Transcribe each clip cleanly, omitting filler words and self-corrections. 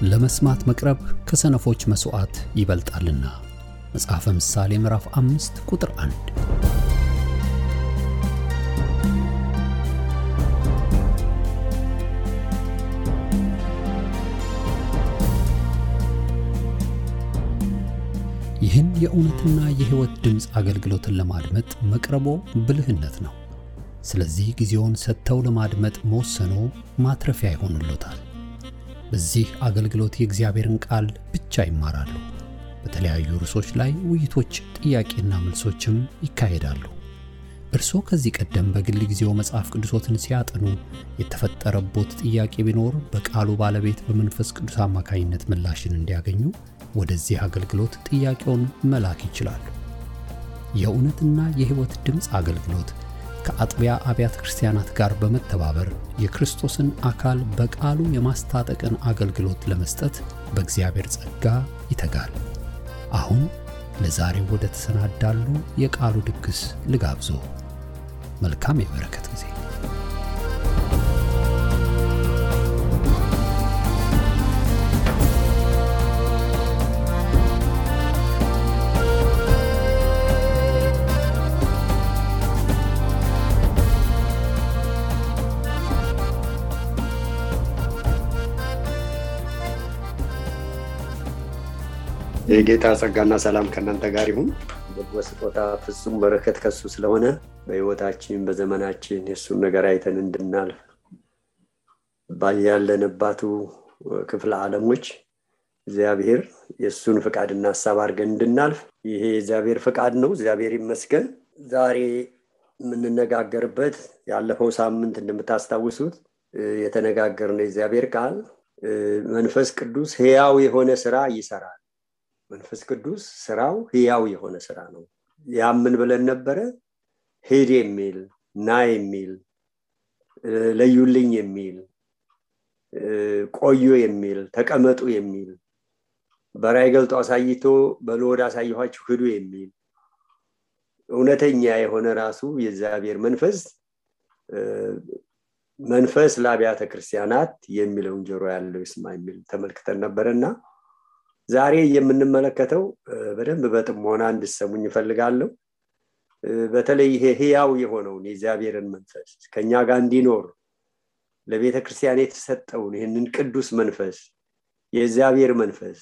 ለመስማት መቅረብ ከሰነፎች መስዋዕት ይበልጣልና። መጽሐፈ ምሳሌ ምዕራፍ 5 ቁጥር 1። ይህን የእውነትና የሕይወት ድምጽ አገልግሎትን ለማድመጥ መቅረቦ ብልህነት ነው። ስለዚህ ጊዜውን ሰጥተው ለማድመጥ መወሰኖ ማትረፊያ ይሆንልዎታል። በዚህ አገልግሎት የእግዚአብሔርን ቃል ብቻ ይማራሉ። በተለያዩ ርዕሶች ላይ ውይይቶች፣ ጥያቄና መልሶችም ይካሄዳሉ። እርስዎ ከዚህ ቀደም በግል ጊዜው መጽሐፍ ቅዱሶትን ሲያጠኑ የተፈጠረቦት ጥያቄ ቢኖር በቃሉ ባለቤት በመንፈስ ቅዱስ አማካኝነት ምላሽን እንዲያገኙ ወደዚህ አገልግሎት ጥያቄውን መላክ ይችላሉ። የእውነትና የሕይወት ድምጽ አገልግሎት ከአጥቢያ አብያተ ክርስቲያናት ጋር በመተባበር የክርስቶስን አካል በቃሉ የማስታጠቅን አገልግሎት ለመስጠት በእግዚአብሔር ጸጋ ይተጋል። አሁን ለዛሬው ወደ ተሰናዳሉ የቃሉ ድግስ ልጋብዞ። መልካም የበረከት ጊዜ። የጌታ ጸጋና ሰላም ከእናንተ ጋር ይሁን። በስጦታ ፍጹም በረከት ከሱ ስለሆነ በሕይወታችን በዘመናችን የሱን ነገር አይተን እንድናልፍ ባያለንባቱ ክፍለ ዓለሞች እግዚአብሔር የሱን ፍቃድና ሐሳብ አድርገን እንድናልፍ ይሄ እግዚአብሔር ፍቃድ ነው። እግዚአብሔር ይመስገን። ዛሬ የምንነጋገርበት ያለፈው ሳምንት እንደምታስታውሱት የተነጋገርነው እግዚአብሔር ቃል መንፈስ ቅዱስ ሕያው የሆነ ሥራ ይሰራል። መንፈስ ቅዱስ ስራው ሕያው የሆነ ስራ ነው። ያምን ብለን ነበር። ሄድ የሚል ና የሚል ለዩልኝ የሚል ቆዩ የሚል ተቀመጡ የሚል በራእይ ገልጦ አሳይቶ በሎድ አሳይኋችሁ ሂዱ የሚል እውነተኛ የሆነ ራሱ የእግዚአብሔር መንፈስ ለአብያተ ክርስቲያናት የሚለውን ጆሮ ያለው ይስማ የሚል ተመልክተን ነበርና ዛሬ የምንመለከተው በደንብ በጥሞና እንድትሰሙኝ እፈልጋለሁ። በተለይ ይሄ ሕያው የሆነው የእግዚአብሔርን መንፈስ ከኛ ጋር እንዲኖር ለቤተ ክርስቲያን የተሰጠውን ይሄንን ቅዱስ መንፈስ የእግዚአብሔር መንፈስ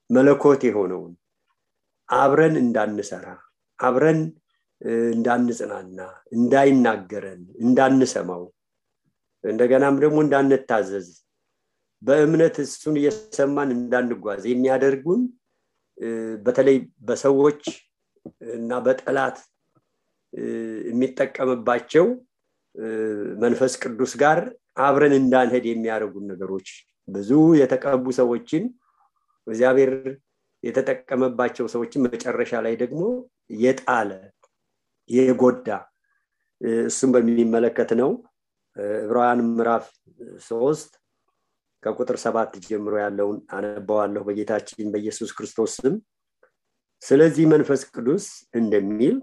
መለኮት የሆነውን አብረን እንዳንሰራ፣ አብረን እንዳንጽናና፣ እንዳይናገረን፣ እንዳንሰማው፣ እንደገናም ደግሞ እንዳንታዘዝ በእምነት እሱን እየሰማን እንዳንጓዝ የሚያደርጉን በተለይ በሰዎች እና በጠላት የሚጠቀምባቸው መንፈስ ቅዱስ ጋር አብረን እንዳንሄድ የሚያደርጉን ነገሮች ብዙ የተቀቡ ሰዎችን እግዚአብሔር የተጠቀመባቸው ሰዎችን መጨረሻ ላይ ደግሞ የጣለ የጎዳ እሱም በሚመለከት ነው። ዕብራውያን ምዕራፍ 3 ከቁጥር 7 ጀምሮ ያለውን አነባዋለሁ በጌታችን በኢየሱስ ክርስቶስ ስም። ስለዚህ መንፈስ ቅዱስ እንደሚል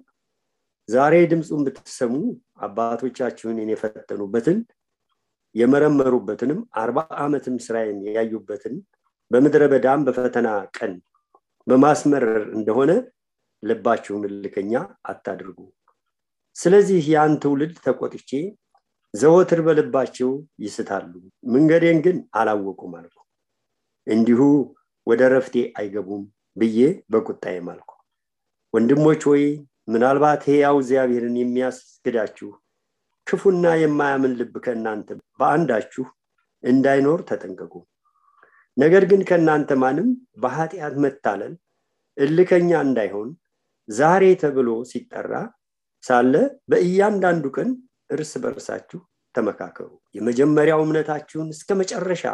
ዛሬ ድምጹን ብትሰሙ አባቶቻችሁን የፈተኑበትን የመረመሩበትንም 40 ዓመትም ስራዬን ያዩበትን በምድረ በዳም በፈተና ቀን በማስመረር እንደሆነ ልባችሁን እልከኛ አታድርጉ። ስለዚህ ያን ትውልድ ተቆጥቼ ዘወትር በልባቸው ይስታሉ፣ መንገዴን ግን አላወቁም አልኩ። እንዲሁ ወደ ረፍቴ አይገቡም ብዬ በቁጣዬ ማልኩ። ወንድሞች ሆይ ምናልባት ሕያው እግዚአብሔርን የሚያስክዳችሁ ክፉና የማያምን ልብ ከእናንተ በአንዳችሁ እንዳይኖር ተጠንቀቁ። ነገር ግን ከእናንተ ማንም በኃጢአት መታለል እልከኛ እንዳይሆን ዛሬ ተብሎ ሲጠራ ሳለ በእያንዳንዱ ቀን እርስ በርሳችሁ ተመካከሩ። የመጀመሪያው እምነታችሁን እስከ መጨረሻ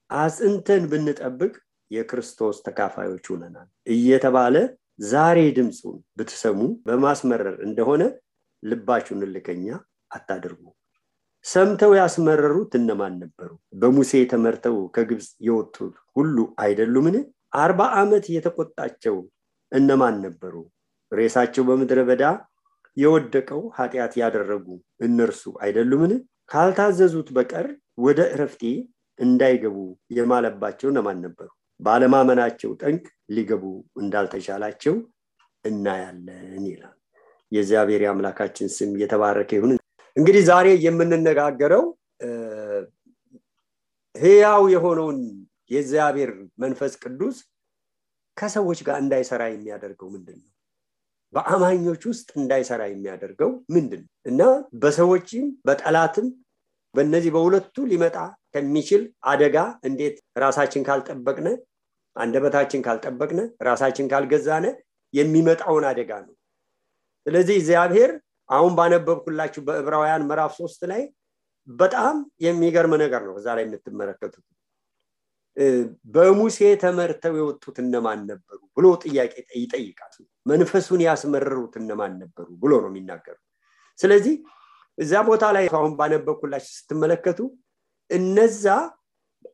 አጽንተን ብንጠብቅ የክርስቶስ ተካፋዮች ሆነናል እየተባለ ዛሬ ድምጹን ብትሰሙ በማስመረር እንደሆነ ልባችሁን እልከኛ አታድርጉ። ሰምተው ያስመረሩት እነማን ነበሩ? በሙሴ ተመርተው ከግብጽ የወጡት ሁሉ አይደሉምን? 40 ዓመት የተቆጣቸው እነማን ነበሩ? ሬሳቸው በምድረ በዳ የወደቀው ኃጢአት ያደረጉ እነርሱ አይደሉምን? ካልታዘዙት በቀር ወደ ዕረፍቴ እንዳይገቡ የማለባቸው እነማን ነበሩ? ባለማመናቸው ጠንቅ ሊገቡ እንዳልተቻላቸው እናያለን ይላል። የእግዚአብሔር አምላካችን ስም የተባረከ ይሁን። እንግዲህ ዛሬ የምንነጋገረው ሕያው የሆነውን የእግዚአብሔር መንፈስ ቅዱስ ከሰዎች ጋር እንዳይሰራ የሚያደርገው ምንድነው? በአማኞች ውስጥ እንዳይሰራ የሚያደርገው ምንድነው? እና በሰዎችም በጠላትም በእነዚህ በሁለቱ ሊመጣ ከሚችል አደጋ እንዴት ራሳችን ካልጠበቅነ፣ አንደበታችን ካልጠበቅነ፣ ራሳችን ካልገዛነ የሚመጣውን አደጋ ነው። ስለዚህ እግዚአብሔር አሁን ባነበብኩላችሁ በዕብራውያን ምዕራፍ 3 ላይ በጣም የሚገርም ነገር ነው እዛ ላይ የምትመለከቱት። በሙሴ ተመርተው የወጡት እነማን ነበሩ ብሎ ጥያቄ ይጠይቃል። መንፈሱን ያስመረሩት እነማን ነበሩ ብሎ ነው የሚናገረው። ስለዚህ እዛ ቦታ ላይ አሁን ባነበብኩላችሁ ስትመለከቱ እነዛ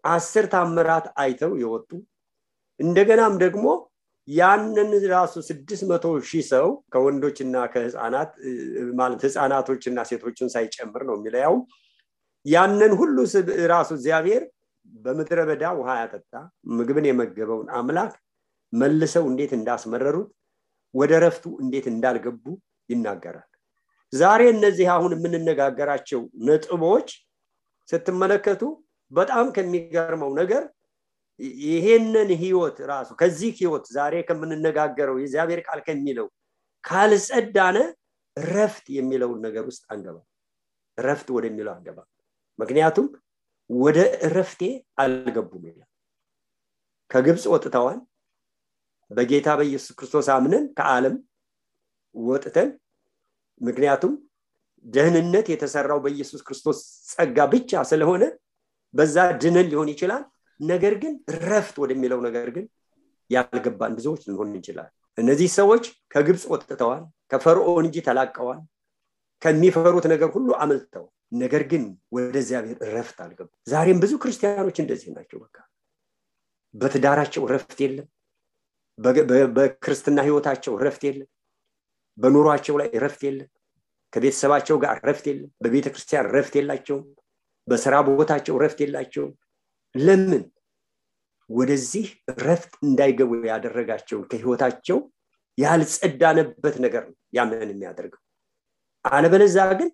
10 ታምራት አይተው የወጡ እንደገናም ደግሞ ያንን ራሱ 600,000 ሰው ከወንዶችና ከህፃናት ማለት ህፃናቶችና ሴቶችን ሳይጨምር ነው የሚለው ያንን ሁሉ ራሱ እግዚአብሔር በመድረ በዳ ውሃ ያጠጣ ምግብን የመገበውን አምላክ መልሰው እንዴት እንዳስመረሩት ወደ ረፍቱ እንዴት እንዳልገቡ ይናገራል። ዛሬ እነዚህ አሁን የምንነጋገራቸው ነጥቦች ስትመለከቱ በጣም ከሚገርመው ነገር ይሄንን ህይወት ራሱ ከዚህ ህይወት ዛሬ ከምንነጋገረው የእግዚአብሔር ቃል ከሚለው ካልጸዳነ ረፍት የሚለው ነገር ውስጥ አንገባ። ረፍት ወደሚለው አንገባ። ምክንያቱም ወደ ረፍቴ አልገቡም ይላል። ከግብጽ ወጥተዋል። በጌታ በኢየሱስ ክርስቶስ አምነን ከዓለም ወጥተን ምክንያቱም ደህንነት የተሰራው በኢየሱስ ክርስቶስ ጸጋ ብቻ ስለሆነ በዛ ድነን ሊሆን ይችላል። ነገር ግን ረፍት ወደሚለው ነገር ግን ያልገባን ብዙዎች ልንሆን እንችላለን። እነዚህ ሰዎች ከግብጽ ወጥተዋል፣ ከፈርዖን እጅ ተላቀዋል፣ ከሚፈሩት ነገር ሁሉ አመልጠው ነገር ግን ወደ እግዚአብሔር ረፍት አልገቡም። ዛሬም ብዙ ክርስቲያኖች እንደዚህ ናቸው። በቃ በትዳራቸው ረፍት የለም፣ በክርስትና ህይወታቸው ረፍት የለም፣ በኑሯቸው ላይ ረፍት የለም፣ ከቤተሰባቸው ጋር ረፍት የለም፣ በቤተክርስቲያን ረፍት የላቸውም፣ በስራ ቦታቸው ረፍት የላቸውም። ለምን? ወደዚህ ረፍት እንዳይገቡ ያደረጋቸው ከህይወታቸው ያልጸዳነበት ነገር ነው ያንን የሚያደርገው። አለበለዚያ ግን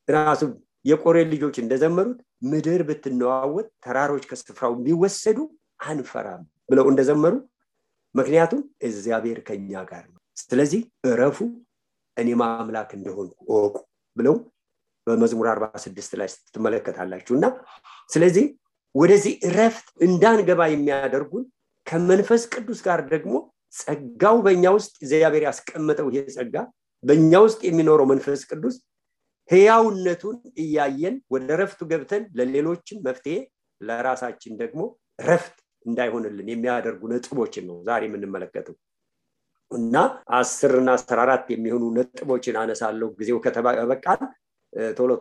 ራሱ የቆሬ ልጆች እንደዘመሩት ምድር ብትነዋወጥ ተራሮች ከስፍራው ቢወሰዱ አንፈራም ብለው እንደዘመሩ ምክንያቱም እግዚአብሔር ከኛ ጋር ነው። ስለዚህ እረፉ እኔ ማምላክ እንደሆንኩ እወቁ ብለው በመዝሙር 46 ላይ ትመለከታላችሁና ስለዚህ ወደዚህ ረፍት እንዳንገባ የሚያደርጉን ከመንፈስ ቅዱስ ጋር ደግሞ ጸጋው በእኛ ውስጥ እግዚአብሔር ያስቀመጠው ይሄ ጸጋ በእኛ ውስጥ የሚኖረው መንፈስ ቅዱስ ሕያውነቱን እያየን ወደ ረፍቱ ገብተን ለሌሎችም መፍትሄ ለራሳችን ደግሞ ረፍት እንዳይሆንልን የሚያደርጉ ነጥቦችን ነው ዛሬ የምንመለከተው። እና 10 እና 14 የሚሆኑ ነጥቦችን አነሳለሁ ጊዜው ከተበቃን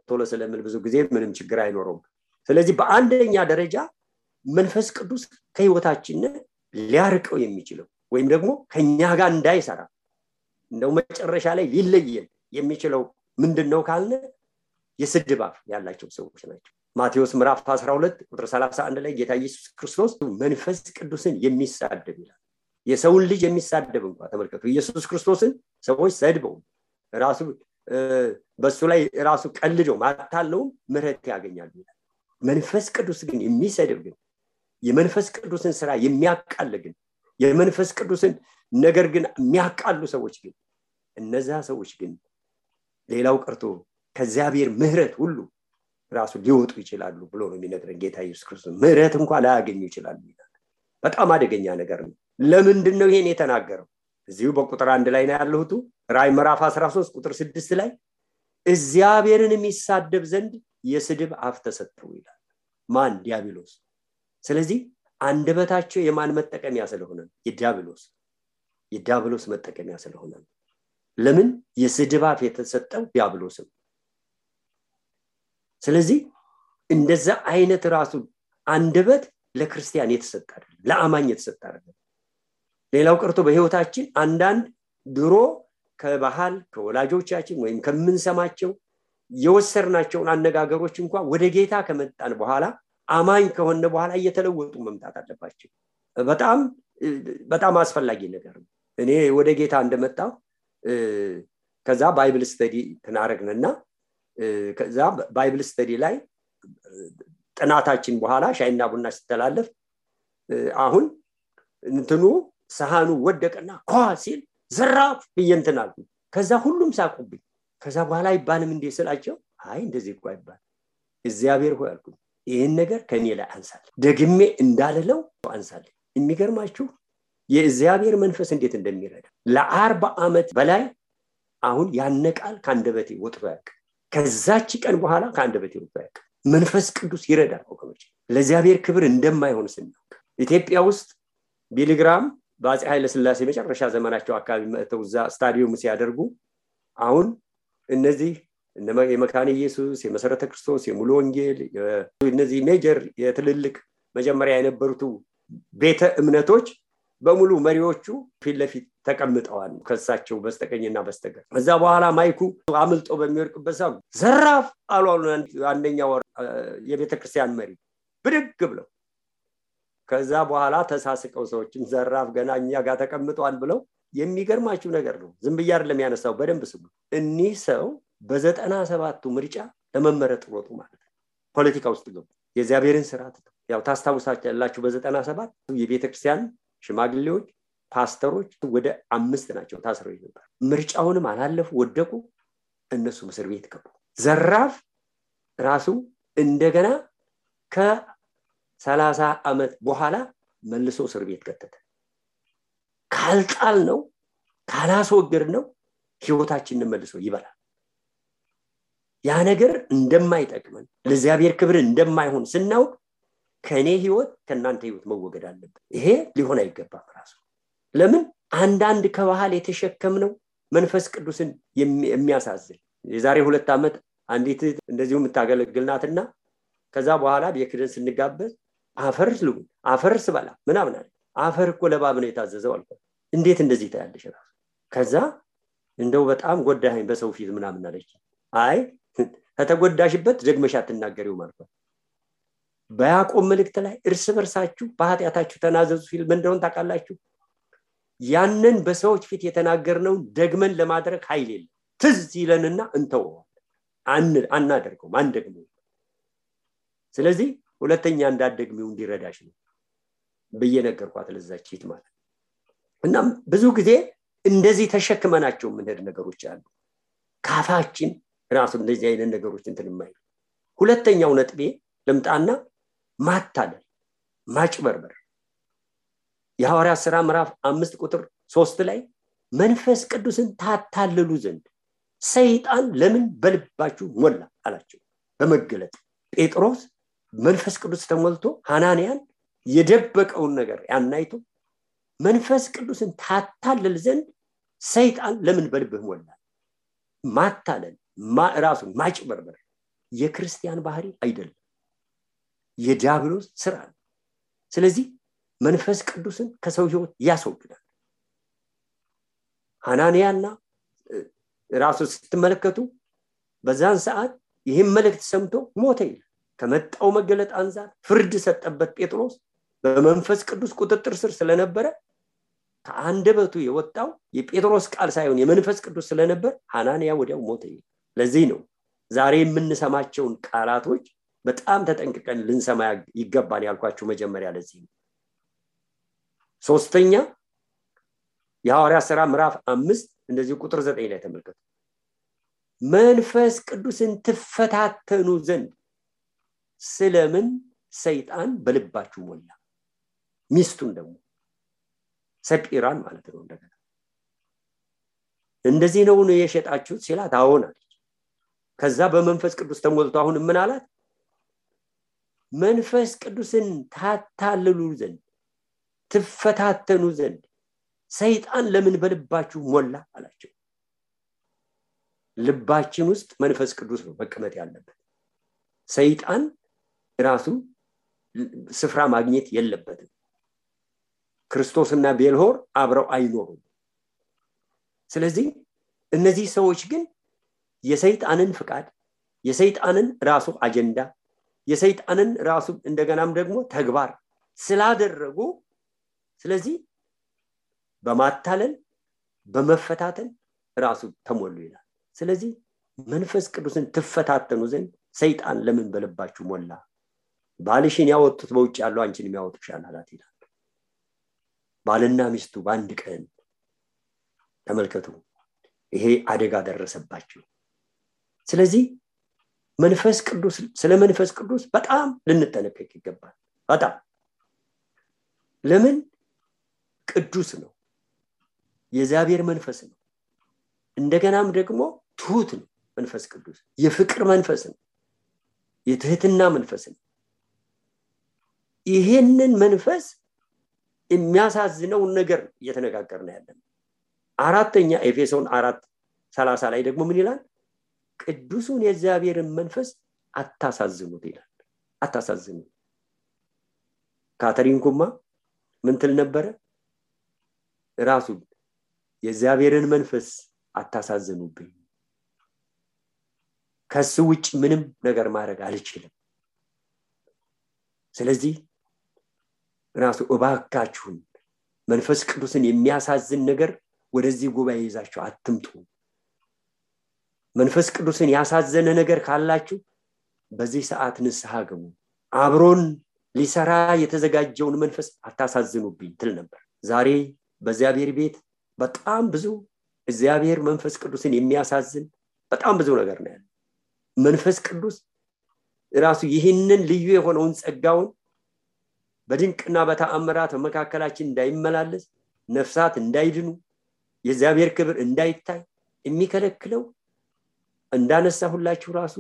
ቶሎ ስለምን ብዙ ጊዜ ምንም ችግር አይኖርም። ስለዚህ በአንደኛ ደረጃ መንፈስ ቅዱስ ከህይወታችን ሊያርቀው የሚችለው ወይም ደግሞ ከኛ ጋር እንዳይሰራ እንደው መጨረሻ ላይ ሊለየን የሚችለው ምንድነው ካልነ የስድብ አፍ ያላቸው ሰዎች ናቸው። ማቴዎስ ምዕራፍ 12 ቁጥር 31 ላይ ጌታ ኢየሱስ ክርስቶስ መንፈስ ቅዱስን የሚሳደብ ይላል። የሰውን ልጅ የሚሳደብ እንኳን ተመልከቱ። ኢየሱስ ክርስቶስን ሰዎች ሰድበው ራሱ በሱ ላይ ራሱ ቀልደው ማታለው ምሕረት ያገኛሉ ይላል። መንፈስ ቅዱስ ግን የሚሰድብ ግን የመንፈስ ቅዱስን ስራ የሚያቃል ግን የመንፈስ ቅዱስን ነገር ግን የሚያቃሉ ሰዎች ግን እነዛ ሰዎች ግን ሌላው ቀርቶ ከእግዚአብሔር ምሕረት ሁሉ ራሱ ሊወጡ ይችላሉ ብሎ ነው የሚነግረን ጌታ ኢየሱስ ክርስቶስ። ምሕረት እንኳን ላያገኙ ይችላሉ ይላል። በጣም አደገኛ ነገር ነው። ለምንድን ነው ይሄን የተናገረው? እዚሁ በቁጥር 1 ላይ ነው ያለሁት። ራዕይ ምዕራፍ 13 ቁጥር 6 ላይ እግዚአብሔርን የሚሳደብ ዘንድ የስድብ አፍ ተሰጠው ይላል። ማን? ዲያብሎስ። ስለዚህ አንደበታቸው የማን መጠቀሚያ ስለሆነ? የዲያብሎስ መጠቀሚያ ስለሆነ። ለምን? የስድብ አፍ የተሰጠው ዲያብሎስም። ስለዚህ እንደዛ አይነት ራሱ አንደበት ለክርስቲያን የተሰጠ አይደለም፣ ለአማኝ የተሰጠ አይደለም። ሌላው ቀርቶ በህይወታችን አንዳንድ ድሮ ከባህል ከወላጆቻችን ወይም ከምንሰማቸው የወሰርናቸውን አነጋገሮች እንኳን ወደ ጌታ ከመጣን በኋላ አማኝ ከሆነ በኋላ እየተለወጡ መምጣት አለባቸው። በጣም አስፈላጊ ነገር ነው። እኔ ወደ ጌታ እንደመጣው ከዛ ባይብል ስተዲ ተናረግነና ከዛ ባይብል ስተዲ ላይ ጥናታችን በኋላ ሻይና ቡና ሲተላለፍ አሁን እንትኑ ሰሃኑ ወደቀና ኳ ሲል ዘራፍ ብየንተናል። ከዛ ሁሉም ሳቁብኝ። ከዛ በኋላ ይባልም እንደ ስላቸው አይ እንደዚህ እኮ አይባል እግዚአብሔር ሆይ አልኩ ይሄን ነገር ከኔ ላይ አንሳል ደግሜ እንዳልለው አንሳል። የሚገርማችሁ የእግዚአብሔር መንፈስ እንዴት እንደሚረዳ ለ40 ዓመት በላይ አሁን ያነቃል ካንደበቴ ወጥቶ ያቅ ከዛች ቀን በኋላ ካንደበቴ ወጥቶ ያቅ መንፈስ ቅዱስ ይረዳል ወገኖች። ለእግዚአብሔር ክብር እንደማይሆን ስናውቅ ኢትዮጵያ ውስጥ ቢሊግራም በአፄ ኃይለ ሥላሴ መጨረሻ ዘመናቸው አካባቢ መጥተው እዛ ስታዲየም ሲያደርጉ አሁን እነዚህ የመካነ ኢየሱስ የመሰረተ ክርስቶስ የሙሉ ወንጌል እነዚህ ሜጀር የትልልቅ መጀመሪያ የነበሩት ቤተ እምነቶች በሙሉ መሪዎቹ ፊት ለፊት ተቀምጠዋል ከሳቸው በስተቀኝና በስተግራ። ከዛ በኋላ ማይኩ አምልጦ በሚወርቅበት ሰዓት ዘራፍ አሉ አንደኛው የቤተ ክርስቲያን መሪ ብድግ ብለው። ከዛ በኋላ ተሳስቀው ሰዎችን ዘራፍ ገና እኛ ጋር ተቀምጠዋል ብለው። የሚገርማችሁ ነገር ነው ዝም ብዬ አይደለም ያነሳው በደንብ ስሙ። እኒህ ሰው በ97ቱ ምርጫ ለመመረጥ ወጡ ማለት ነው። ፖለቲካ ውስጥ ገቡ። የእግዚአብሔርን ስርዓት ያው ታስታውሳላችሁ በ97 የቤተክርስቲያን ሽማግሌዎች ፓስተሮች ወደ 5 ናቸው ታስረው ነበር። ምርጫውንም አላለፉ ወደቁ። እነሱ እስር ቤት ገቡ። ዘራፍ ራሱ እንደገና ከ30 ዓመት በኋላ መልሶ እስር ቤት ከተተ። ካልጣል ነው ካላስወገድ ነው ህይወታችንን መልሶ ይበላል። ያ ነገር እንደማይጠቅመን ለእግዚአብሔር ክብር እንደማይሆን ስናውቅ ከኔ ህይወት ከናንተ ህይወት መወገድ አለበት። ይሄ ሊሆን አይገባም ራሱ። ለምን አንዳንድ ከባህል የተሸከምነው መንፈስ ቅዱስን የሚያሳዝን የዛሬ 2 ዓመት አንዲት እንደዚሁ የምታገለግልናትና ከዛ በኋላ በክርስቲያን ስንጋበዝ አፈርስ በላ ምናምን አለ። አፈር እኮ ለባብ ነው የታዘዘው አልኩ። እንዴት እንደዚህ ታያለሽ ራሱ? ከዛ እንደው በጣም ጎዳኸኝ በሰው ፊት ምናምን አለች። አይ ከተጎዳሽበት ደግመሽ አትናገሪው ማለት ነው። በያዕቆብ መልእክት ላይ እርስ በርሳችሁ በኃጢአታችሁ ተናዘዙ ሲል ምን እንደሆነ ታውቃላችሁ? ያንን በሰዎች ፊት የተናገርነው ደግመን ለማድረግ ኃይል የለም። ትዝ ይለንና እንተው አናደርገውም አንደግመው። ስለዚህ ሁለተኛ እንዳትደግሚው እንዲረዳሽ ነው በየነገርኳት ለዛችት ማለት። እና ብዙ ጊዜ እንደዚህ ተሸክመናቸው ምንሄድ ነገሮች አሉ። ካፋችን ራሱ እንደዚህ አይነት ነገሮች እንትንማይ። ሁለተኛው ነጥቤ ለምጣና ማታለል ማጭበርበር። የሐዋርያት ሥራ ምዕራፍ 5 ቁጥር 3 ላይ መንፈስ ቅዱስን ታታልሉ ዘንድ ሰይጣን ለምን በልባችሁ ሞላ አላቸው። በመገለጥ ጴጥሮስ መንፈስ ቅዱስ ተሞልቶ ሐናንያን የደበቀውን ነገር ያናይቶ መንፈስ ቅዱስን ታታልል ዘንድ ሰይጣን ለምን በልብህ ሞላ። ማታለል ራሱ ማጭበርበር የክርስቲያን ባህሪ አይደለም፣ የዲያብሎስ ስራ ነው። ስለዚህ መንፈስ ቅዱስን ከሰው ህይወት ያስወግዳል። ሐናንያና ራሱ ስትመለከቱ በዛን ሰዓት ይህን መልእክት ሰምቶ ሞተ ይላል። ከመጣው መገለጥ አንፃር ፍርድ ሰጠበት። ጴጥሮስ በመንፈስ ቅዱስ ቁጥጥር ስር ስለነበረ ከአንደበቱ የወጣው የጴጥሮስ ቃል ሳይሆን የመንፈስ ቅዱስ ስለነበር ሐናንያ ወዲያው ሞተ ይላል። ለዚህ ነው ዛሬ የምንሰማቸውን ቃላቶች በጣም ተጠንቅቀን ልንሰማ ይገባል ያልኳችሁ መጀመሪያ ለዚህ ነው። ሶስተኛ የሐዋርያት ሥራ ምዕራፍ 5 እንደዚህ ቁጥር 9 ላይ ተመልከቱ። መንፈስ ቅዱስን ትፈታተኑ ዘንድ ስለምን ሰይጣን በልባችሁ ሞላ። ሚስቱን ደግሞ ሰጲራን ማለት ነው እንደገና እንደዚህ ነው የሸጣችሁት ሲላት አዎን አለች። ከዛ በመንፈስ ቅዱስ ተሞልቶ አሁን ምን አላት? መንፈስ ቅዱስን ታታልሉ ዘንድ ትፈታተኑ ዘንድ ሰይጣን ለምን በልባችሁ ሞላ አላቸው። ልባችን ውስጥ መንፈስ ቅዱስ ነው መቀመጥ ያለበት። ሰይጣን ራሱ ስፍራ ማግኘት የለበትም። ክርስቶስና ቤልሆር አብረው አይኖሩም። ስለዚህ እነዚህ ሰዎች ግን የሰይጣንን ፍቃድ የሰይጣንን ራሱ አጀንዳ የሰይጣንን ራሱ እንደገናም ደግሞ ተግባር ስላደረጉ ስለዚህ በማታለል በመፈታተን ራሱ ተሞሉ ይላል። ስለዚህ መንፈስ ቅዱስን ትፈታተኑ ዘንድ ሰይጣን ለምን በልባችሁ ሞላ? ባልሽን ያወጡት በውጭ ያለው አንቺን የሚያወጡሻል አላት ይላል። ባልና ሚስቱ በአንድ ቀን ተመልከቱ፣ ይሄ አደጋ ደረሰባቸው። ስለዚህ መንፈስ ቅዱስ ስለ መንፈስ ቅዱስ በጣም ልንጠነቀቅ ይገባል። በጣም ለምን? ቅዱስ ነው፣ የእግዚአብሔር መንፈስ ነው። እንደገናም ደግሞ ትሁት ነው። መንፈስ ቅዱስ የፍቅር መንፈስ ነው፣ የትህትና መንፈስ ነው። ይሄንን መንፈስ የሚያሳዝነው ነገር እየተነጋገርን ያለን። አራተኛ ኤፌሶን 4:30 ላይ ደግሞ ምን ይላል? ቅዱሱን የእግዚአብሔርን መንፈስ አታሳዝኑት ይላል። አታሳዝኑት። ካተሪን ኩማ ምን ትል ነበረ? ራሱ የእግዚአብሔርን መንፈስ አታሳዝኑብኝ፣ ከሱ ውጭ ምንም ነገር ማድረግ አልችልም። ስለዚህ ራሱ እባካችሁን መንፈስ ቅዱስን የሚያሳዝን ነገር ወደዚህ ጉባኤ ይዛችሁ አትምጡ። መንፈስ ቅዱስን ያሳዘነ ነገር ካላችሁ በዚህ ሰዓት ንስሐ ግቡ። አብሮን ሊሰራ የተዘጋጀውን መንፈስ አታሳዝኑብኝ ትል ነበር። ዛሬ በእግዚአብሔር ቤት በጣም ብዙ እግዚአብሔር መንፈስ ቅዱስን የሚያሳዝን በጣም ብዙ ነገር ነው ያለው። መንፈስ ቅዱስ ራሱ ይህንን ልዩ የሆነውን ጸጋውን በድንቅና በተአምራት መካከላችን እንዳይመላለስ፣ ነፍሳት እንዳይድኑ፣ የእግዚአብሔር ክብር እንዳይታይ የሚከለክለው እንዳነሳሁላችሁ ራሱ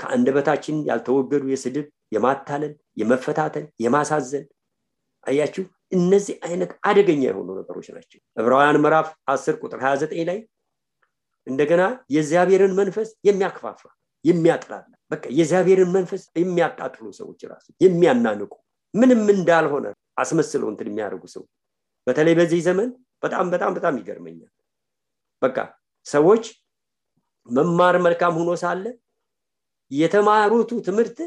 ከአንደበታችን ያልተወገዱ የስድብ፣ የማታለል፣ የመፈታተን፣ የማሳዘን አያችሁ፣ እነዚህ አይነት አደገኛ የሆኑ ነገሮች ናቸው። ዕብራውያን ምዕራፍ 10:29 ላይ እንደገና የእግዚአብሔርን መንፈስ የሚያከፋፋ የሚያጥላላ በቃ የእግዚአብሔርን መንፈስ የሚያጣጥሉ ሰዎች ራሱ የሚያናንቁ ምንም እንዳልሆነ አስመስለው እንትን የሚያደርጉ ሰው በተለይ በዚህ ዘመን በጣም ይገርመኛል። በቃ ሰዎች መማር መልካም ሆኖ ሳለ የተማሩት ትምህርት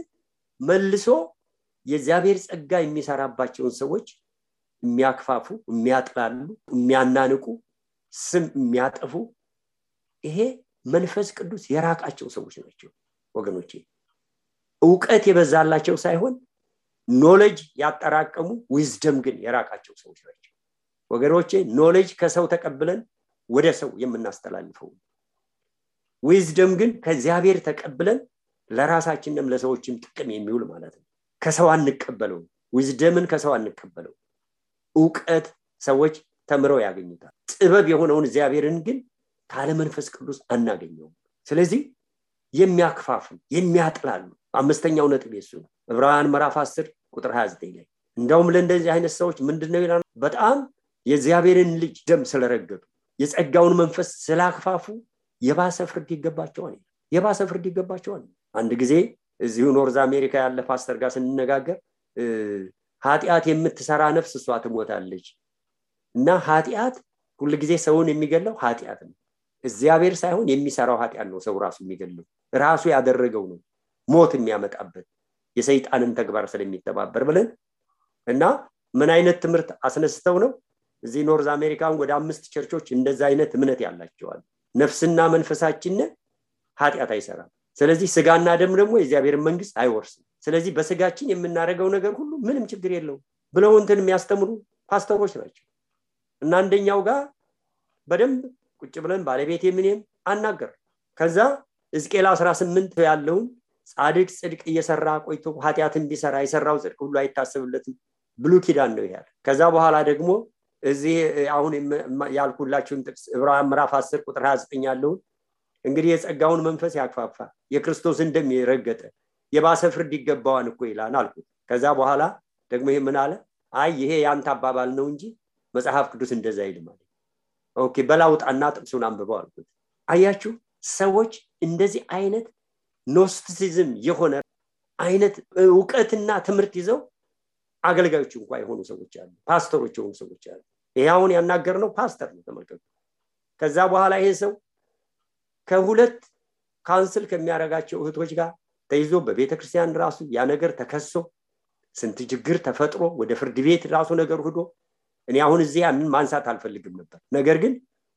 መልሶ የእግዚአብሔር ጸጋ የሚሰራባቸውን ሰዎች የሚያክፋፉ፣ የሚያጥላሉ፣ የሚያናንቁ፣ ስም የሚያጠፉ ይሄ መንፈስ ቅዱስ የራቃቸው ሰዎች ናቸው ወገኖቼ። ዕውቀት የበዛላቸው ሳይሆን ኖሌጅ ያጠራቀሙ ዊዝደም ግን የራቃቸው ሰዎች ናቸው ወገኖቼ። ኖሌጅ ከሰው ተቀብለን ወደ ሰው የምናስተላልፈው፣ ዊዝደም ግን ከእግዚአብሔር ተቀብለን ለራሳችንም ለሰዎችም ጥቅም የሚውል ማለት ነው። ከሰው አንቀበለው፣ ዊዝደምን ከሰው አንቀበለው። ዕውቀት ሰዎች ተምረው ያገኙታል። ጥበብ የሆነውን እግዚአብሔርን ግን ካለ መንፈስ ቅዱስ አናገኘውም። ስለዚህ የሚያክፋፉ፣ የሚያጥላሉ አምስተኛው ነጥብ የሱ ነው። ዕብራውያን ምዕራፍ 10:29 ላይ እንደውም ለእንደዚህ አይነት ሰዎች ምንድነው ይላል? በጣም የእግዚአብሔርን ልጅ ደም ስለረገጡ የጸጋውን መንፈስ ስላክፋፉ የባሰ ፍርድ ይገባቸዋል። የባሰ ፍርድ ይገባቸዋል። አንድ ጊዜ እዚሁ ኖርዝ አሜሪካ ያለ ፓስተር ጋር ስንነጋገር ኃጢአት የምትሰራ ነፍስ እሷ ትሞታለች እና ኃጢአት ሁሉ ጊዜ ሰውን የሚገለው ኃጢአት ነው፣ እግዚአብሔር ሳይሆን የሚሰራው ኃጢአት ነው ሰው ራሱ የሚገለው፣ ራሱ ያደረገው ነው ሞት የሚያመጣበት የሰይጣንን ተግባር ስለሚተባበር ብለን እና ምን አይነት ትምህርት አስነስተው ነው እዚህ ኖርዝ አሜሪካን ወደ 5 ቸርቾች እንደዛ አይነት እምነት ያላቸዋል። ነፍስና መንፈሳችን ኃጢአት አይሰራም፣ ስለዚህ ስጋና ደም ደግሞ የእግዚአብሔር መንግስት አይወርስም፣ ስለዚህ በስጋችን የምናደርገው ነገር ሁሉ ምንም ችግር የለውም ብለው እንትን የሚያስተምሩ ፓስተሮች ናቸው። እና አንደኛው ጋር በደንብ ቁጭ ብለን ባለቤቴ ምንም አናገር። ከዛ ሕዝቅኤል 18 ያለውን ጻድቅ ጽድቅ እየሰራ ቆይቶ ኃጢአትን ቢሰራ የሰራው ጽድቅ ሁሉ አይታሰብለትም ብሉይ ኪዳን ነው ይላል። ከዛ በኋላ ደግሞ እዚህ አሁን ያልኩላችሁን ጥቅስ ዕብራውያን ምዕራፍ 10:29 ያለውን እንግዲህ የጸጋውን መንፈስ ያክፋፋ የክርስቶስን ደም የረገጠ የባሰ ፍርድ ይገባዋል እኮ ይላል አልኩት። ከዛ በኋላ ደግሞ ይሄ ምን አለ? አይ ይሄ ያንተ አባባል ነው እንጂ መጽሐፍ ቅዱስ እንደዛ አይልም አለ። ኦኬ በላውጣና ጥቅሱን አንብበው አልኩት። አያችሁ ሰዎች እንደዚህ አይነት ኖስቲሲዝም የሆነ አይነት ዕውቀትና ትምህርት ይዘው አገልጋዮች እንኳን የሆኑ ሰዎች አሉ፣ ፓስተሮች የሆኑ ሰዎች አሉ። ይሄውን ያናገርነው ፓስተር ነው ተመልከቱ። ከዛ በኋላ ይሄ ሰው ከሁለት ካንስል ከሚያረጋቸው እህቶች ጋር ተይዞ በቤተክርስቲያን ራሱ ያ ነገር ተከሶ ስንት ችግር ተፈጥሮ ወደ ፍርድ ቤት ራሱ ነገር ሄዶ እኔ አሁን እዚህ ያንን ማንሳት አልፈልግም ነበር ነገር ግን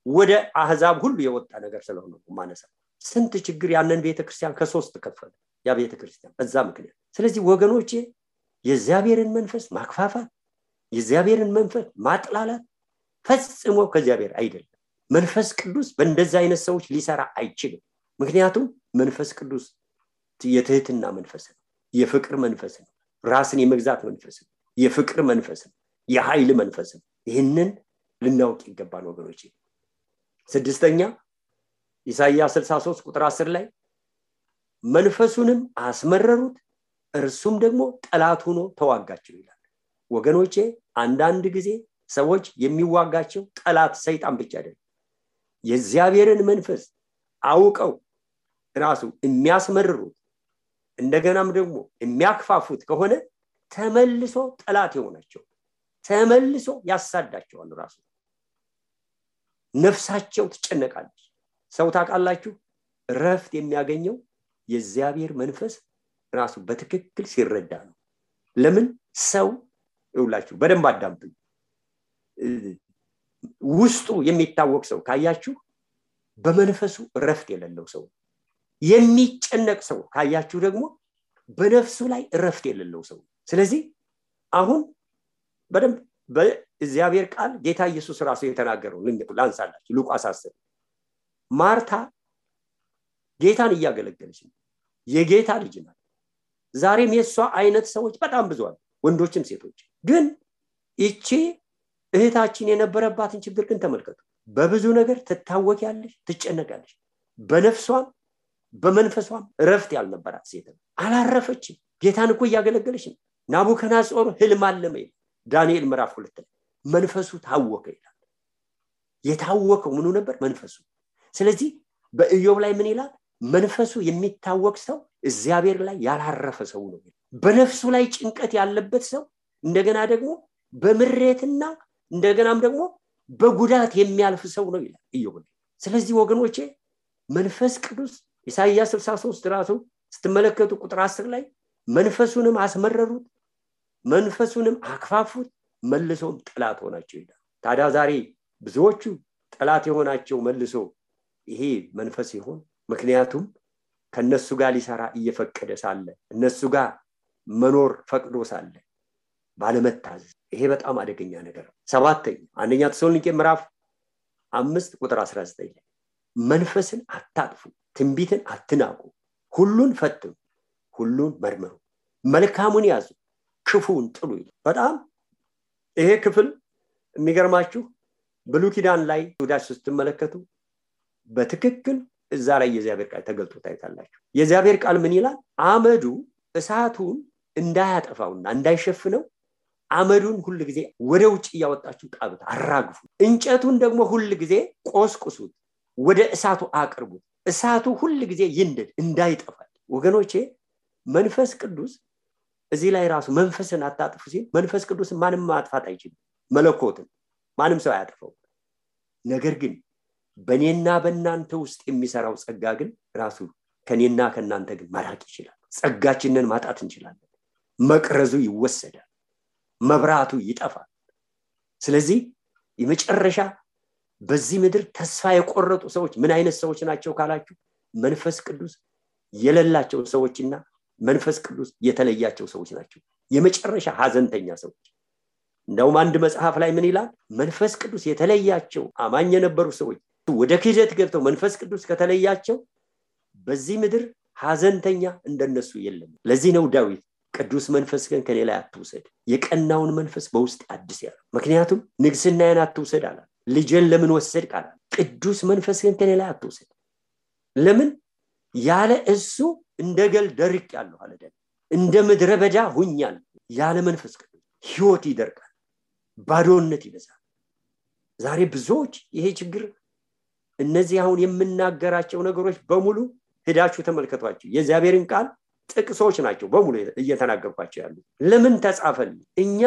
ወደ አህዛብ ሁሉ የወጣ ነገር ስለሆነ ማነሳ ስንት ችግር ያንን ቤተክርስቲያን ከሶስት ከፈለ ያ ቤተክርስቲያን በዛ ምክንያት ስለዚህ ወገኖቼ የእግዚአብሔርን መንፈስ ማክፋፋት የእግዚአብሔርን መንፈስ ማጥላላት ፈጽሞ ከእግዚአብሔር አይደለም መንፈስ ቅዱስ በእንደዛ አይነት ሰዎች ሊሰራ አይችልም ምክንያቱም መንፈስ ቅዱስ የትህትና መንፈስ ነው የፍቅር መንፈስ ነው ራስን የመግዛት መንፈስ ነው የፍቅር መንፈስ ነው የኃይል መንፈስ ነው ይህንን ልናውቅ ይገባል ወገኖቼ ስድስተኛ ኢሳይያስ 63 ቁጥር 10 ላይ መንፈሱንም አስመረሩት እርሱም ደግሞ ጠላት ሆኖ ተዋጋቸው ይላል ወገኖቼ አንዳንድ ጊዜ ሰዎች የሚዋጋቸው ጠላት ሰይጣን ብቻ አይደለም የእግዚአብሔርን መንፈስ አውቀው ራሱ የሚያስመርሩት እንደገናም ደግሞ የሚያክፋፉት ከሆነ ተመልሶ ጠላት ይሆናቸው ተመልሶ ያሳዳቸዋል ራሱ ነፍሳቸው ትጨነቃለች ሰው ታውቃላችሁ ረፍት የሚያገኘው የእግዚአብሔር መንፈስ ራሱ በትክክል ሲረዳ ነው ለምን ሰው ይውላችሁ በደንብ አዳምጡ ውስጡ የሚታወቅ ሰው ካያችሁ በመንፈሱ ረፍት የሌለው ሰው የሚጨነቅ ሰው ካያችሁ ደግሞ በነፍሱ ላይ ረፍት የሌለው ሰው ስለዚህ አሁን በደንብ በእግዚአብሔር ቃል ጌታ ኢየሱስ ራሱ የተናገረው ላንሳላችሁ ሉቃስ 10 ማርታ ጌታን እያገለገለች ነው የጌታ ልጅ ናት ዛሬም የሷ አይነት ሰዎች በጣም ብዙ አሉ ወንዶችም ሴቶች ግን እቺ እህታችን የነበረባትን ችግር ግን ተመልከቱ በብዙ ነገር ትታወቂያለሽ ትጨነቃለሽ በነፍሷም በመንፈሷም ረፍት ያልነበራት ሴት አላረፈችም ጌታን እኮ እያገለገለች ነው ናቡከደነጾር ህልም አለመ ዳንኤል ምዕራፍ 2 መንፈሱ ታወከ ይላል የታወከው ምኑ ነበር መንፈሱ ስለዚህ በኢዮብ ላይ ምን ይላል መንፈሱ የሚታወቅ ሰው እግዚአብሔር ላይ ያላረፈ ሰው ነው በነፍሱ ላይ ጭንቀት ያለበት ሰው እንደገና ደግሞ በምሬትና እንደገናም ደግሞ በጉዳት የሚያልፍ ሰው ነው ይላል ኢዮብ ስለዚህ ወገኖቼ መንፈስ ቅዱስ ኢሳይያስ 63 ራሱ ስትመለከቱ ቁጥር 10 ላይ መንፈሱንም አስመረሩት መንፈሱንም አክፋፉት መልሶም ጠላት ሆናቸው ይላል ታዲያ ዛሬ ብዙዎቹ ጠላት የሆናቸው መልሶ ይሄ መንፈስ ይሆን ምክንያቱም ከነሱ ጋር ሊሰራ እየፈቀደ ሳለ እነሱ ጋር መኖር ፈቅዶ ሳለ ባለመታዘዝ ይሄ በጣም አደገኛ ነገር ነው ሰባተኛ አንደኛ ተሰሎንቄ ምዕራፍ 5 ቁጥር 19 ላይ መንፈስን አታጥፉ ትንቢትን አትናቁ ሁሉን ፈትኑ ሁሉን መርምሩ መልካሙን ያዙ ክፉን ጥሉ ይላል በጣም ይሄ ክፍል የሚገርማችሁ ብሉይ ኪዳን ላይ ወዳችሁ ስትመለከቱ በትክክል እዛ ላይ የእግዚአብሔር ቃል ተገልጦ ታይታላችሁ የእግዚአብሔር ቃል ምን ይላል አመዱ እሳቱን እንዳያጠፋውና እንዳይሸፍነው አመዱን ሁሉ ጊዜ ወደ ውጭ ያወጣችሁ ጣብት አራግፉ እንጨቱን ደግሞ ሁሉ ጊዜ ቆስቁሱት ወደ እሳቱ አቅርቡት እሳቱ ሁሉ ጊዜ ይንደድ እንዳይጠፋ ወገኖቼ መንፈስ ቅዱስ እዚህ ላይ ራሱ መንፈስን አታጥፉ ሲል መንፈስ ቅዱስ ማንም ማጥፋት አይችልም መለኮትን ማንም ሰው አያጠፋው ነገር ግን በኔና በእናንተ ውስጥ የሚሰራው ጸጋ ግን ራሱ ከኔና ከናንተ ግን ማራቅ ይችላል ጸጋችንን ማጣት እንችላለን መቅረዙ ይወሰዳል መብራቱ ይጠፋል ስለዚህ የመጨረሻ በዚህ ምድር ተስፋ የቆረጡ ሰዎች ምን አይነት ሰዎች ናቸው ካላችሁ መንፈስ ቅዱስ የሌላቸው ሰዎችና መንፈስ ቅዱስ የተለያቸው ሰዎች ናቸው የመጨረሻ ሐዘንተኛ ሰዎች እንደውም አንድ መጽሐፍ ላይ ምን ይላል መንፈስ ቅዱስ የተለያቸው አማኝ የነበሩ ሰዎች ወደ ክህደት ገብተው መንፈስ ቅዱስ ከተለያቸው በዚህ ምድር ሐዘንተኛ እንደነሱ የለም ለዚህ ነው ዳዊት ቅዱስ መንፈስ ግን ከኔ ላይ አትውሰድ የቀናውን መንፈስ በውስጥ አድስ ያለው ምክንያቱም ንግስናዬን አትውሰድ አለ ልጄን ለምን ወሰድክ አለ ቅዱስ መንፈስ ግን ከኔ ላይ አትውሰድ ለምን ያለ እሱ እንደገል ደርቅ ያለው አለ እንደ ምድረ በዳ ሁኛል ያለ መንፈስ ቅዱስ ህይወት ይደርቃል ባዶነት ይበዛል ዛሬ ብዙዎች ይሄ ችግር እነዚህ አሁን የምናገራቸው ነገሮች በሙሉ ሄዳችሁ ተመልከቷቸው የእግዚአብሔርን ቃል ጥቅሶች ናቸው በሙሉ እየተናገርኳቸው ያሉ ለምን ተጻፈል እኛ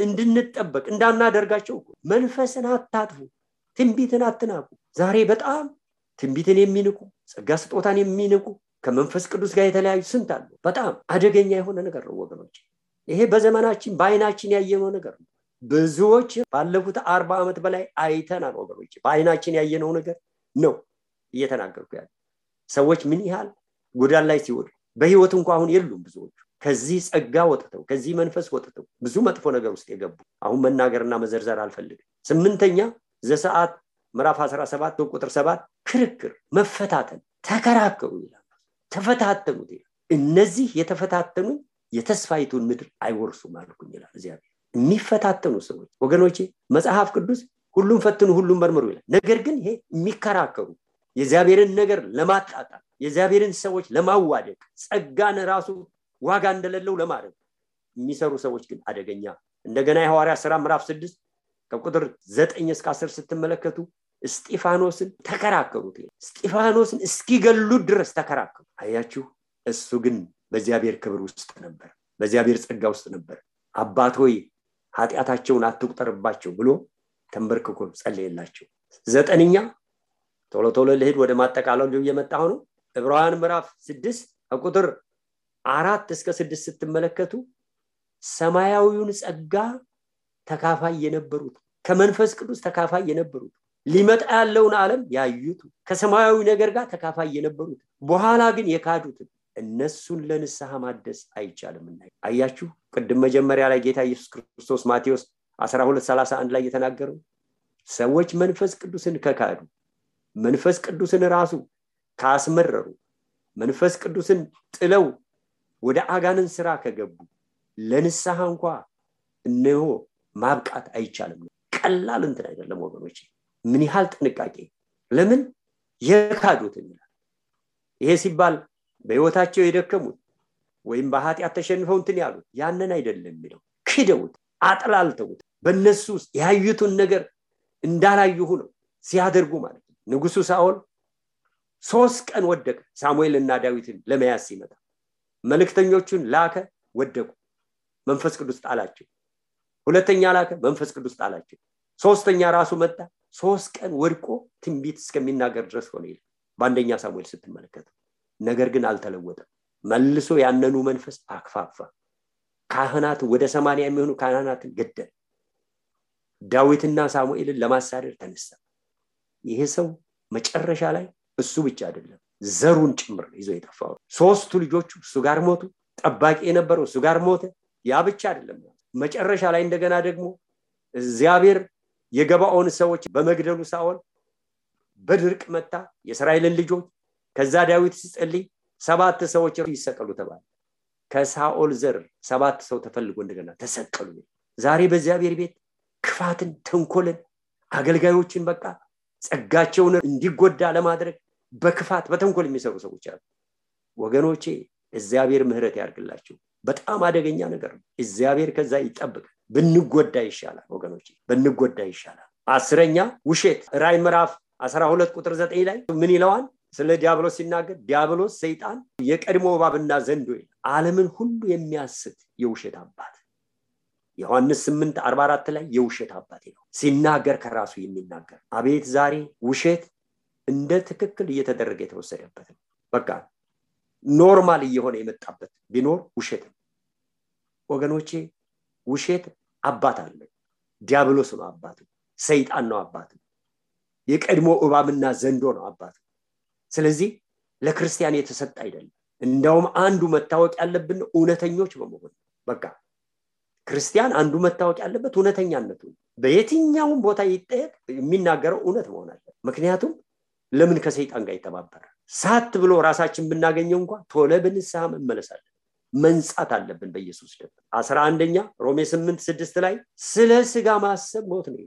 እንድንጠበቅ እንዳናደርጋቸው መንፈስን አታጥፉ ትንቢትን አትናቁ ዛሬ በጣም ትንቢትን የሚንቁ ጸጋ ስጦታን የሚንቁ ከመንፈስ ቅዱስ ጋር የተለያዩ ስንት አሉ። በጣም አደገኛ የሆነ ነገር ነው ወገኖች። ይሄ በዘመናችን በአይናችን ያየነው ነገር ነው። ብዙዎች ባለፉት 40 ዓመት በላይ አይተናል ወገኖች። በአይናችን ያየነው ነገር ነው እየተናገርኩ ያለው። ሰዎች ምን ያህል ጎዳና ላይ ሲወድቁ በህይወት እንኳን አሁን የሉም። ብዙዎች ከዚህ ጸጋ ወጥተው ከዚህ መንፈስ ወጥተው ብዙ መጥፎ ነገር ውስጥ የገቡ አሁን መናገርና መዘርዘር አልፈልግም። 8ኛ ዘጸአት ምዕራፍ 17 ቁጥር 7 ክርክር፣ መፈታተን፣ ተከራከሩ ይላል። ተፈታተኑት ይላል። እነዚህ የተፈታተኑ የተስፋይቱን ምድር አይወርሱም አልኩኝ ይላል እግዚአብሔር። የሚፈታተኑ ሰዎች ወገኖቼ መጽሐፍ ቅዱስ ሁሉም ፈትኑ ሁሉም መርምሩ ይላል። ነገር ግን ይሄ የሚከራከሩ የእግዚአብሔርን ነገር ለማጣጣል የእግዚአብሔርን ሰዎች ለማዋደቅ ጸጋን ራሱ ዋጋ እንደሌለው ለማድረግ የሚሰሩ ሰዎች ግን አደገኛ። እንደገና የሐዋርያት ሥራ ምዕራፍ 6 ከቁጥር 9 እስከ 10 ስትመለከቱ እስጢፋኖስን ተከራከሩት። እስጢፋኖስን እስኪገሉት ድረስ ተከራከሩ። አያችሁ፣ እሱ ግን በእግዚአብሔር ክብር ውስጥ ነበር፣ በእግዚአብሔር ጸጋ ውስጥ ነበር። አባት ሆይ ኃጢአታቸውን አትቁጠርባቸው ብሎ ተንበርክኮ ጸለየላቸው። 9ኛ ቶሎ ለሄድ ወደ ማጠቃለሉ እየመጣሁ ነው። ዕብራውያን ምዕራፍ 6 ከቁጥር 4 እስከ 6 ስትመለከቱ ሰማያዊውን ጸጋ ተካፋይ የነበሩት ከመንፈስ ቅዱስ ተካፋይ የነበሩት ሊመጣ ያለውን ዓለም ያዩት ከሰማያዊ ነገር ጋር ተካፋይ የነበሩት በኋላ ግን የካዱት እነሱን ለንስሐ ማደስ አይቻልምና። አያችሁ፣ ቅድም መጀመሪያ ላይ ጌታ ኢየሱስ ክርስቶስ ማቴዎስ 12:31 ላይ የተናገረው ሰዎች መንፈስ ቅዱስን ከካዱ መንፈስ ቅዱስን ራሱ ካስመረሩ መንፈስ ቅዱስን ጥለው ወደ አጋንን ስራ ከገቡ ለንስሐ እንኳን እነሆ ማብቃት አይቻልም። ቀላል እንትን አይደለም ወገኖች። ምን ያህል ጥንቃቄ! ለምን የካዱትን ይላል። ይሄ ሲባል በህይወታቸው የደከሙት ወይም በኃጢአት ተሸንፈው እንትን ያሉት ያንን አይደለም የሚለው። ክደውት አጥላልተውት በእነሱ ውስጥ ያዩትን ነገር እንዳላዩ ሆነው ሲያደርጉ ማለት ነው። ንጉሱ ሳኦል 3 ቀን ወደቀ። ሳሙኤልና ዳዊትን ለመያዝ ሲመጣ መልእክተኞቹን ላከ፣ ወደቁ። መንፈስ ቅዱስ ጣላቸው። ሁለተኛ ላከ፣ መንፈስ ቅዱስ ጣላቸው። ሶስተኛ ራሱ መጣ። 3 ቀን ወድቆ ትንቢት እስከሚናገር ድረስ ሆነ ይላል በአንደኛ ሳሙኤል ስትመለከቱ። ነገር ግን አልተለወጠም። መልሶ ያነኑ መንፈስ አክፋፋ። ካህናት ወደ 80 የሚሆኑ ካህናትን ገደለ። ዳዊትና ሳሙኤልን ለማሳደድ ተነሳ። ይሄ ሰው መጨረሻ ላይ እሱ ብቻ አይደለም ዘሩን ጭምር ይዞ የጠፋው 3 ልጆቹ እሱ ጋር ሞቱ። ጠባቂ የነበረው እሱ ጋር ሞተ። ያ ብቻ አይደለም፣ መጨረሻ ላይ እንደገና ደግሞ እግዚአብሔር የገባኦን ሰዎች በመግደሉ ሳኦል በድርቅ መታ የእስራኤልን ልጆች። ከዛ ዳዊት ሲጸልይ 7 ሰዎች ይሰቀሉ ተባለ። ከሳኦል ዘር 7 ሰው ተፈልጎ እንደገና ተሰቀሉ። ዛሬ በእግዚአብሔር ቤት ክፋትን፣ ተንኮልን፣ አገልጋዮችን በቃ ጸጋቸውን እንዲጎዳ ለማድረግ በክፋት በተንኮል የሚሰሩ ሰዎች አሉ። ወገኖቼ እግዚአብሔር ምህረት ያርግላችሁ። በጣም አደገኛ ነገር ነው። እግዚአብሔር ከዛ ይጠብቅ። ብንጎዳ ይሻላል ወገኖቼ፣ ብንጎዳ ይሻላል። 10ኛ ውሸት። ራዕይ ምዕራፍ 12 ቁጥር 9 ላይ ምን ይለዋል? ስለ ዲያብሎስ ሲናገር ዲያብሎስ ሰይጣን የቀድሞ እባብና ዘንዶ ዓለምን ሁሉ የሚያስት የውሸት አባት። ዮሐንስ 8:44 ላይ የውሸት አባት ነው ሲናገር ከራሱ የሚናገር። አቤት ዛሬ ውሸት እንደ ትክክል እየተደረገ የተወሰደበት ነው። በቃ ኖርማል እየሆነ የመጣበት ቢኖር ውሸት ነው ወገኖቼ። ውሸት አባት አለ። ዲያብሎስ ነው አባቱ፣ ሰይጣን ነው አባቱ፣ የቀድሞ እባብና ዘንዶ ነው አባቱ። ስለዚህ ለክርስቲያን የተሰጠ አይደለም። እንደውም አንዱ መታወቅ ያለብን እውነተኞች በመሆን በቃ ክርስቲያን አንዱ መታወቅ ያለበት እውነተኛነቱ። በየትኛውም ቦታ ይጠየቅ የሚናገረው እውነት መሆን አለበት። ምክንያቱም ለምን ከሰይጣን ጋር ይተባበራል? ሳት ብሎ ራሳችን ብናገኘው እንኳን ቶሎ በንስሐ መመለስ አለብን፣ መንጻት አለብን በኢየሱስ ደም። 11ኛ ሮሜ 8:6 ላይ ስለ ስጋ ማሰብ ሞት ነው፣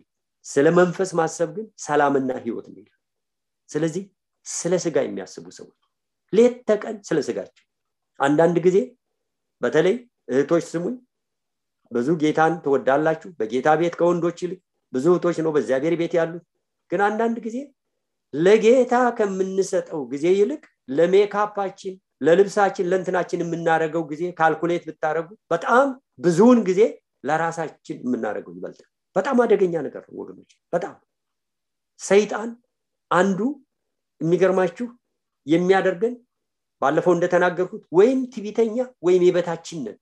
ስለ መንፈስ ማሰብ ግን ሰላምና ህይወት ነው። ስለዚህ ስለ ስጋ የሚያስቡ ሰዎች ሌት ተቀን ስለ ስጋቸው። አንዳንድ ጊዜ በተለይ እህቶች ስሙኝ፣ ብዙ ጌታን ትወዳላችሁ። በጌታ ቤት ከወንዶች ይልቅ ብዙ እህቶች ነው በእግዚአብሔር ቤት ያሉት። ግን አንዳንድ ጊዜ ለጌታ ከምንሰጠው ጊዜ ይልቅ ለሜካፓችን፣ ለልብሳችን፣ ለእንትናችን የምናደርገው ጊዜ ካልኩሌት ብታረጉ በጣም ብዙውን ጊዜ ለራሳችን የምናደርገው ይበልጣል። በጣም አደገኛ ነገር ነው ወገኖች። በጣም ሰይጣን አንዱ የሚገርማችሁ የሚያደርገን ባለፈው እንደተናገርኩት ወይም ትዕቢተኛ ወይም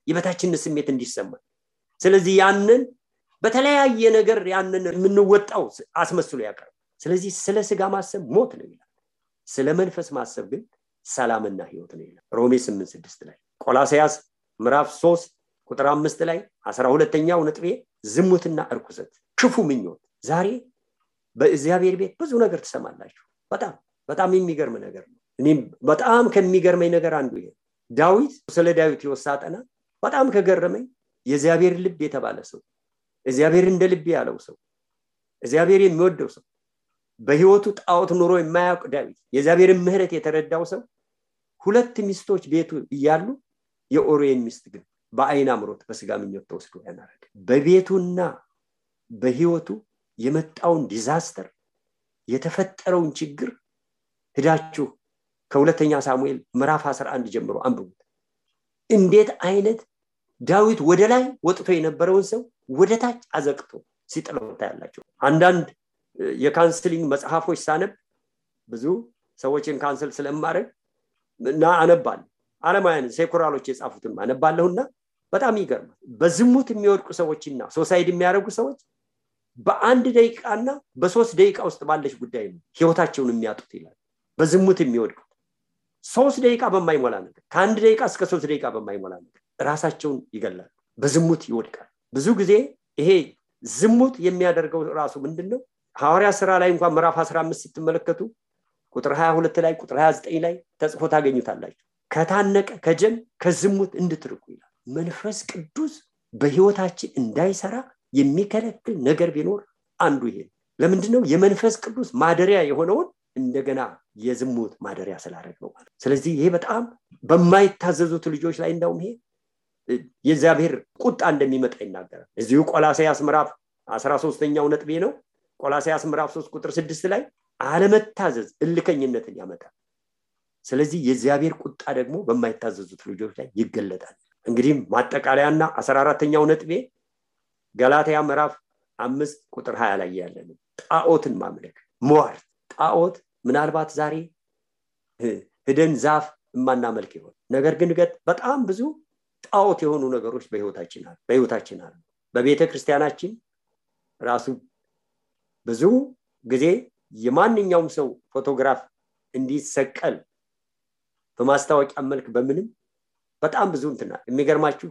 የበታችነት ስሜት እንዲሰማ ስለዚህ ያንን በተለያየ ነገር ያንን የምንወጣው አስመስሎ ያቀርባል ስለዚህ ስለ ስጋ ማሰብ ሞት ነው ይላል ስለ መንፈስ ማሰብ ግን ሰላምና ሕይወት ነው ይላል ሮሜ 8:6 ላይ ቆላስይስ ምዕራፍ 3 ቁጥር 5 ላይ 12ኛው ነጥቤ ዝሙትና እርኩሰት ክፉ ምኞት ዛሬ በእግዚአብሔር ቤት ብዙ ነገር ተሰማላችሁ በጣም የሚገርም ነገር ነው እኔም በጣም ከሚገርመኝ ነገር አንዱ ይሄ ዳዊት ስለ ዳዊት ይወሳጠና በጣም ከገረመኝ የእግዚአብሔር ልብ የተባለ ሰው እግዚአብሔር እንደ ልብ ያለው ሰው እግዚአብሔር የሚወደው ሰው በህይወቱ ጣዖት ኑሮ የማያውቅ ዳዊት የእግዚአብሔርን ምህረት የተረዳው ሰው ሁለት ሚስቶች ቤቱ እያሉ የኦሪዮን ሚስት ግን በአይን አምሮት በስጋ ምኞት ተወስዶ ያናረደ በቤቱና በህይወቱ የመጣውን ዲዛስተር የተፈጠረውን ችግር ሄዳችሁ ከሁለተኛ ሳሙኤል ምዕራፍ 11 ጀምሮ አንብቡት እንዴት አይነት ዳዊት ወደ ላይ ወጥቶ የነበረውን ሰው ወደ ታች አዘቅቶ ሲጥለው ታያላችሁ አንዳንድ የካንሰሊንግ መጽሐፎች ሳነብ ብዙ ሰዎችን ካንሰል ስለማረግ እና አነባለሁ ዓለማውያን ሴኩራሎች የጻፉትን አነባለሁና በጣም ይገርማል በዝሙት የሚወድቁ ሰዎችና ሶሳይድ የሚያረጉ ሰዎች በአንድ ደቂቃና በ3 ደቂቃ ውስጥ ባለች ጉዳይ ነው ህይወታቸውን የሚያጡት ይላል በዝሙት የሚወድቁ 3 ደቂቃ በማይሞላ ነገር ከ1 ደቂቃ እስከ 3 ደቂቃ በማይሞላ ነገር ራሳቸውን ይገላሉ በዝሙት ይወድቃሉ ብዙ ጊዜ ይሄ ዝሙት የሚያደርገው ራሱ ምንድነው ሐዋርያ ሥራ ላይ እንኳን ምዕራፍ 15 ስትመለከቱ ቁጥር 22 ላይ ቁጥር 29 ላይ ተጽፎ ታገኙታላችሁ ከታነቀ ከጀም ከዝሙት እንድትርቁ ይላል መንፈስ ቅዱስ በህይወታችን እንዳይሰራ የሚከለክል ነገር ቢኖር አንዱ ይሄ ለምንድነው የመንፈስ ቅዱስ ማደሪያ የሆነውን እንደገና የዝሙት ማደሪያ ስላደረገው ማለት ስለዚህ ይሄ በጣም በማይታዘዙት ልጆች ላይ እንደውም ይሄ የእግዚአብሔር ቁጣ እንደሚመጣ ይናገራል እዚሁ ቆላስይስ ምዕራፍ 13ኛው ነጥቤ ነው ቆላስይስ ምዕራፍ 3 ቁጥር 6 ላይ አለመታዘዝ እልከኝነትን ያመጣል ስለዚህ የእግዚአብሔር ቁጣ ደግሞ በማይታዘዙት ልጆች ላይ ይገለጣል እንግዲህ ማጠቃለያና 14ኛው ነጥቤ ገላትያ ምዕራፍ 5 ቁጥር 20 ላይ ያለ ነው ጣዖትን ማምለክ ሟርት ጣዖት ምናልባት ዛሬ ሄደን ዛፍ ማናመልክ ይሆን ነገር ግን በጣም ብዙ ጣዖት የሆኑ ነገሮች በህይወታችን አሉ በቤተ ክርስቲያናችን ራሱ ብዙ ጊዜ የማንኛውም ሰው ፎቶግራፍ እንዲሰቀል በማስታወቂያ መልክ በምንም በጣም ብዙ እንትና የሚገርማችሁ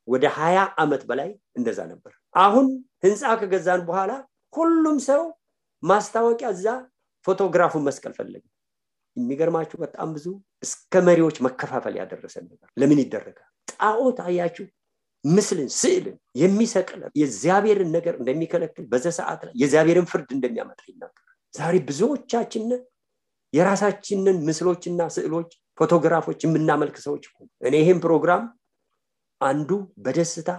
ወደ 20 አመት በላይ እንደዛ ነበር አሁን ህንጻ ከገዛን በኋላ ሁሉም ሰው ማስታወቂያ እዛ ፎቶግራፉን መስቀል ፈለገ የሚገርማችሁ በጣም ብዙ እስከ መሪዎች መከፋፈል ያደረሰ ነገር ለምን ይደረጋል ጣዖት አያችሁ ምስልን ስዕልን የሚሰቅል የእግዚአብሔርን ነገር እንደሚከለክል በዛ ሰዓት ላይ የእግዚአብሔርን ፍርድ እንደሚያመጣ ይናገራል ዛሬ ብዙዎቻችን የራሳችንን ምስሎችና ስዕሎች ፎቶግራፎች የምናመልክ ሰዎች እኔ ይሄን ፕሮግራም አንዱ በደስታ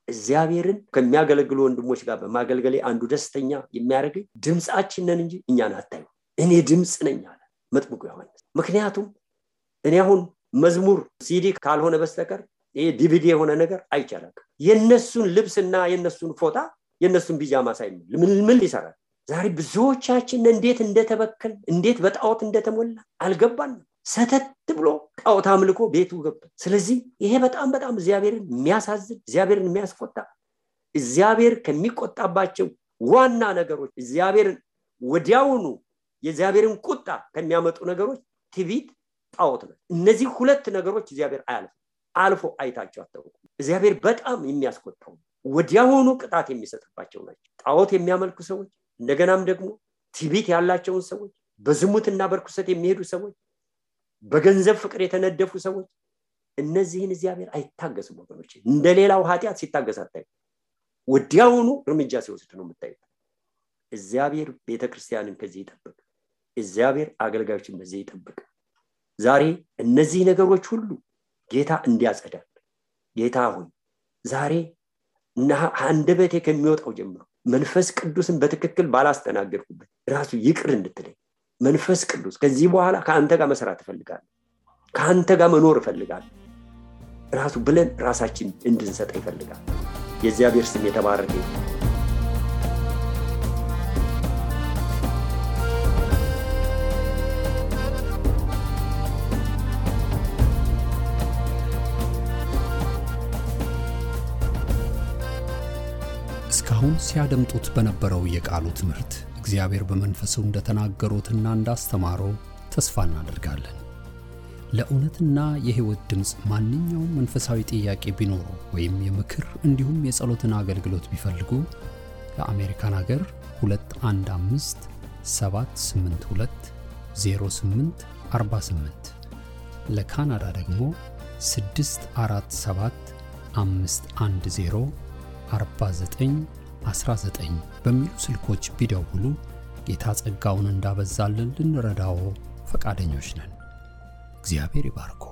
እግዚአብሔርን ከሚያገለግሉ ወንድሞች ጋር በማገልገሌ አንዱ ደስተኛ የሚያደርገኝ ድምጻችንን እንጂ እኛን አታዩ እኔ ድምጽ ነኝ አለ መጥምቁ ዮሐንስ ምክንያቱም እኔ አሁን መዝሙር ሲዲ ካልሆነ በስተቀር ይሄ ዲቪዲ የሆነ ነገር አይቻልም የነሱን ልብስና የነሱን ፎታ የነሱን ቢጃማ ሳይሆን ምን ሊሰራ ዛሬ ብዙዎቻችን እንዴት እንደተበከል እንዴት በጣዖት እንደተሞላ አልገባንም ሰተት ብሎ ጣዖት አምልኮ ቤቱ ገባ ስለዚህ ይሄ በጣም እግዚአብሔርን የሚያሳዝን እግዚአብሔርን የሚያስቆጣ እግዚአብሔር ከሚቆጣባቸው ዋና ነገሮች እግዚአብሔርን ወዲያውኑ የእግዚአብሔርን ቁጣ ከሚያመጡ ነገሮች ትዕቢት ጣዖት ነው እነዚህ ሁለት ነገሮች እግዚአብሔር አልፎ አይታቸው አታውቁ እግዚአብሔር በጣም የሚያስቆጣው ወዲያውኑ ቅጣት የሚሰጥባቸው ናቸው ጣዖት የሚያመልኩ ሰዎች እንደገናም ደግሞ ትዕቢት ያላቸው ሰዎች በዝሙትና በርኩሰት የሚሄዱ ሰዎች በገንዘብ ፍቅር የተነደፉ ሰዎች እነዚህን እግዚአብሔር አይታገስም ወገኖች እንደሌላው ኃጢያት ሲታገስ አታዩ ወዲያውኑ እርምጃ ሲወስድ ነው የምታዩት እግዚአብሔር ቤተክርስቲያንን ከዚህ ይጠብቅ እግዚአብሔር አገልጋዮችን በዚህ ይጠብቅ ዛሬ እነዚህ ነገሮች ሁሉ ጌታ እንዲያጸዳል ጌታ ሆይ ዛሬ አንደበቴ ከሚወጣው ጀምሮ መንፈስ ቅዱስን በትክክል ባላስተናገርኩበት ራሱ ይቅር እንድትለኝ መንፈስ ቅዱስ ከዚህ በኋላ ካንተ ጋር መስራት እፈልጋለሁ ካንተ ጋር መኖር እፈልጋለሁ ራሱ ብለን ራሳችን እንድንሰጥ ይፈልጋል የእግዚአብሔር ስም የተባረከ ይሁን አሁን ሲያደምጡት በነበረው የቃሉ ትምህርት እግዚአብሔር በመንፈሱ እንደተናገሩትና እንዳስተማረው ተስፋ እናደርጋለን። ለእውነትና የሕይወት ድምጽ ማንኛውም መንፈሳዊ ጥያቄ ቢኖሩ ወይም የምክር እንዲሁም የጸሎትን አገልግሎት ቢፈልጉ ለአሜሪካን ሀገር 215 782 0848 ለካናዳ ደግሞ 647 510 4919 በሚሉ ስልኮች ቢደውሉ ጌታ ጸጋውን እንዳበዛልን ልንረዳው ፈቃደኞች ነን። እግዚአብሔር ይባርኮ።